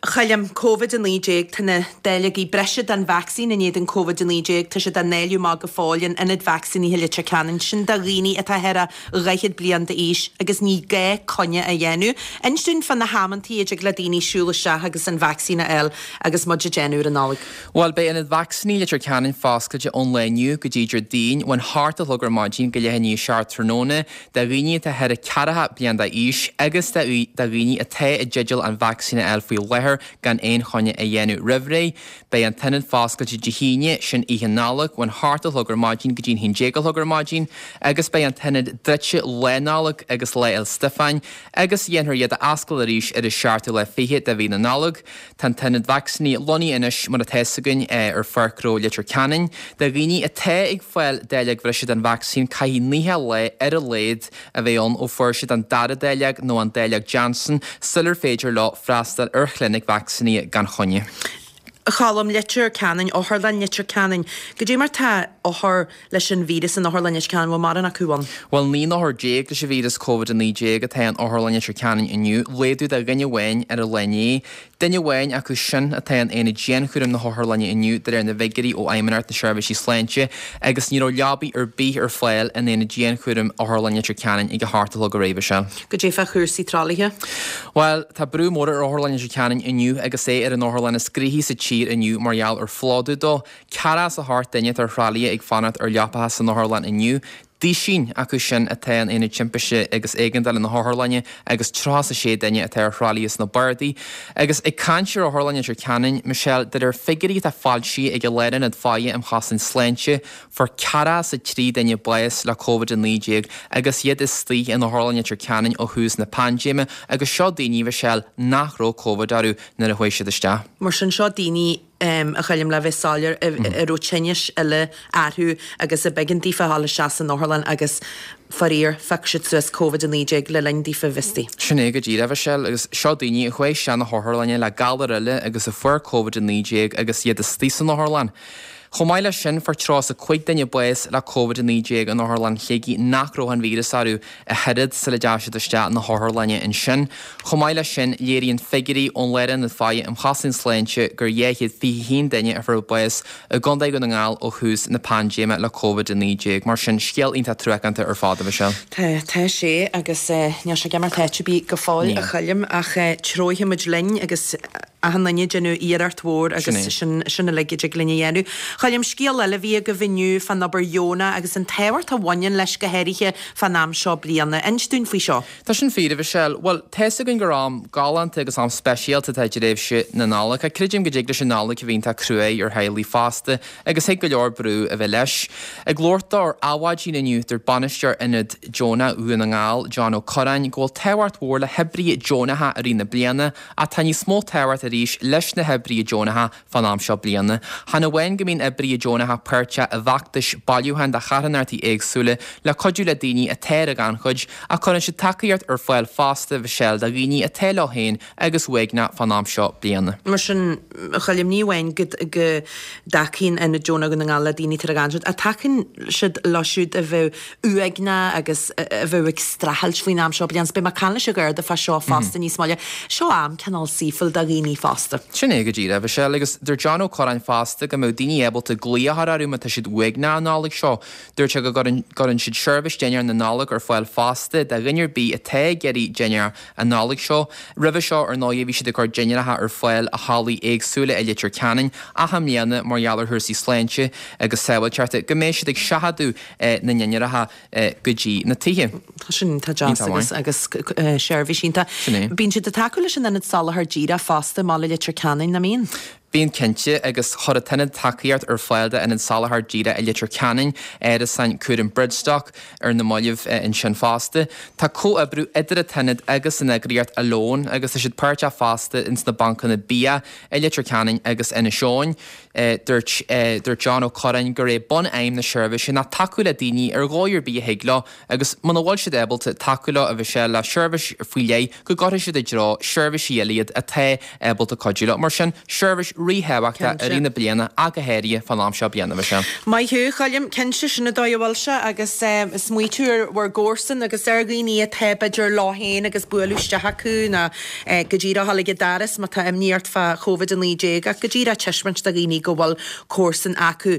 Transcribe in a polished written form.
Choilm, Covid-19, Tá na dáileogaí breise den vacsaín in éadan Covid-19, tá siad á ndáileadh amach go fóill in ionad vacsaínithe Leitir Ceanainn, sin do dhaoine atá thar 40 bliain d'aois agus ní gá coinne a dhéanamh. Inis dúinn fá na hamantaí a dtig le daoine siúl isteach agus an vacsaín a fháil agus muid ag déanamh ar an Nollaig. Bhuel, beidh ionad vacsaíní Leitir Ceanainn foscailte ón lá inniu go dtí Déardaoin, ón hocht a chlog ar maidin go leath i ndiaidh a 7 tráthnóna, do dhaoine atá thar 40 bliain d'aois agus do dhaoine atá i dteideal an vacsaín a fháil faoi láthair gan aon choinne a dhéanamh roimh ré. Beidh an t-ionad foscailte Dé hAoine, sin Oíche Nollag, ón hocht a chlog ar maidin go dtí'n 11 a chlog ar maidin agus beidh an t-ionad druidte Lá Nollag agus Lá Fhéil Stiofáin agus dhéanfar iad a oscailt arís ar an seachtú lá fichead de mhí na Nollag. Tá an t-ionad vacsaíní lonnaithe anois, mar atá fhios againn, ar Pháirc Ghnó Leitir Ceanainn. Do dhaoine atá ag fáil dáileog bhreise den vacsaín, caithfidh 90 lá ar a laghad a bheith ann ó fuair siad an dara dáileog nó an dáileog Janssen sular féidir leo freastal ar chlinic vacsaínithe gan choinne. A Choilm, Leitir Ceanainn, Otharlann Leitir Ceanainn. Goidé mar tá othair leis an víreas in Otharlann Leitir Ceanainn, bhfuil mórán acu ann? Bhuel, 19 n-othar leis an víreas Covid-19 atá in Otharlann Leitir Ceanainn inniu, laghdú de dhuine amháin ar an lá inné. Duine amháin acu sin atá in aonad dianchúraim na hotharlainne inniu de réir na bhfigiúirí ó Fheidhmeannacht na Seirbhísí Sláinte agus ní raibh leabaí ar bith ar fáil in aonad dianchúraim Otharlann Leitir Ceanainn ag a hocht a chlog aréir, a Mhichelle. Goidé fá chúrsaí tralaithe? Bhuel, tá brú mór ar Otharlann Leitir Ceanainn inniu agus é ar an otharlann is gnoithí sa tír inniu mar gheall ar phlódú dó. 48 duine atá ar thralaithe ag fanacht ar leapacha san otharlann inniu. Duisín acu sin atá in Aonad Timpiste agus Éigeandála na hOtharlainne agus 36 duine atá ar thralaithe sna bardaí. Agus ag caint ar Otharlann Leitir Ceanainn, Michelle, de réir figiúirí atá foilsithe ag an Lárionad Faire um Chosaint Sláinte, fuair 43 duine bás le Covid-19 agus iad istigh in Otharlann Leitir Ceanainn ó thús na paindéime agus seo daoine, Michelle, nach raibh Covid orthu nuair a chuaigh siad isteach. Mar sin, seo daoine a Choilm, le bheith soiléir, a raibh tinnis eile orthu agus a b'éigean daofa a dhul isteach san otharlann agus, faraor, phioc siad suas Covid-19 le linn daofa bheith istigh. Sin é go díreach, a Mhichelle, agus seo daoine a chuaigh isteach na hotharlainne le galar eile agus a fuair Covid-19 agus iad istigh san otharlann. Chomh maith leis sin, fuair 35 duine bás le Covid-19 in Otharlann Shligigh nach raibh an víreas orthu ach oiread sula dteachaigh siad isteach na hotharlainne ansin. Chomh maith leis sin, léiríonn figiúirí ón Lárionad Faire um Chosaint Sláinte gur 221 duine a fuair bás i gContae Dhún na nGall ó thús na paindéime le Covid-19. Mar sin, scéal iontach truacánta ar fad, a Mhichelle. Tá, tá sé agus níl sé ag imeacht áit ar bith go fóill, a Choilm, ach treofaidh muid linn agus. achan duine ag déanamh iarracht mhór agus sin sin uilig a dtig linn a dhéanamh. Choilm, scéal eile a bhí agaibh inniu fán obair dheonach agus an tábhacht a bhaineann leis go háirithe fán am seo bliana. Inis dúinn faoi seo. Tá sin fíor, a Mhichelle. Bhuel, tá fhios againn gur am galánta agus am speisialta atá i dtréimhse na Nollag. Ach creidim go dtig leis an Nollaig a bheith iontach cruaidh ar theaghlaigh fosta agus thig go leor brú a bheith leis. Ag labhairt dó ar Adhmhaidin inniu, dúirt bainisteoir Ionad Deonach Dhún na nGall, John Ó Curráin, go bhfuil tábhacht mhór le hoibrithe deonacha i rith na bliana Ach tá níos mó tábhacht arís leis na hoibrithe deonacha fán am seo bliana. Chan amháin go mbíonn oibrithe deonacha páirteach i bhfeachtais bailiúcháin do charthanachtaí éagsúla le cuidiú le daoine atá ar an ghannchuid, ach cuireann siad tacaíocht ar fáil fosta, a Mhichelle, do dhaoine atá leo féin agus uaigneach fán am seo bliana. Mar sin, a Choilm, ní amháin go dtacaíonn Ionad Deonach Dhún na nGall le daoine atá ar an ghannchuid, ach tacaíonn siad leo siúd a bheadh uaigneach agus a bheadh ag streachailt faoin am seo bliana. Beidh mé ag caint leis an Gharda fá seo fosta níos moille. Seo am cineál saoithiúil do dhaoine fosta. Sin é go díreach, a Mhichelle, agus dúirt John Ó Curráin fosta go mbeadh daoine ábalta glaoch a chur orthu má tá siad uaigneach an Nollaig seo. Dúirt sé go gcuireann siad seirbhís dinnéar na Nollag ar fáil fosta do dhuine ar bith atá ag iarraidh dinnéar an Nollaig seo. Roimhe seo, ar ndóigh, bhí siad ag cur dinnéaracha ar fáil i hallaí éagsúla i Leitir Ceanainn ach i mbliana, mar gheall ar chúrsaí sláinte agus sábháilteachta, go mbeidh siad ag seachadadh na ndinnéaracha go dtí na tithe. Tá sin iontach deas agus agus seirbhís iontach. Sin é. Bíonn siad ag tacú leis an Ionad Soláthair Díreach fosta i mbaile Leitir Ceanainn, nach mbíonn? Bíonn cinnte, agus chuir an tIonad tacaíocht ar fáil d'Ionad Soláthair Díreach i Leitir Ceanainn, árasáin cúraim Bridgestock ar na mallaibh ansin fosta. Tá comhoibriú idir an tIonad agus an eagraíocht Alone agus tá siad páirteach fosta ins na bancanna bia i Leitir Ceanainn agus Inis Eoghain. Dúirt dúirt John Ó Curráin gur é bun-aidhm na seirbhíse ná tacú le daoine ar dhóigh ar bith a thig leo agus muna bhfuil siad ábalta tacú leo a Mhichelle le seirbhís faoi leith go gcuirfidh siad i dtreo seirbhísí eile iad atá ábalta cuidiú leo. Mar sin, seirbhís. ríthábhachtach i rith na bliana ach go háirithe fán am seo bliana, Michelle. Maith thú, a Choilm. Cinnte, sin an dóigh a bhfuil sé agus smaoitiú ar bhur gcomharsan agus ar dhaoine atá b'fhéidir leo féin agus bualadh isteach acu nó go díreach a dhul ag an doras má tá imní ort fá Covid-19 ach go díreach taispeáint do dhaoine go bhfuil comharsan acu.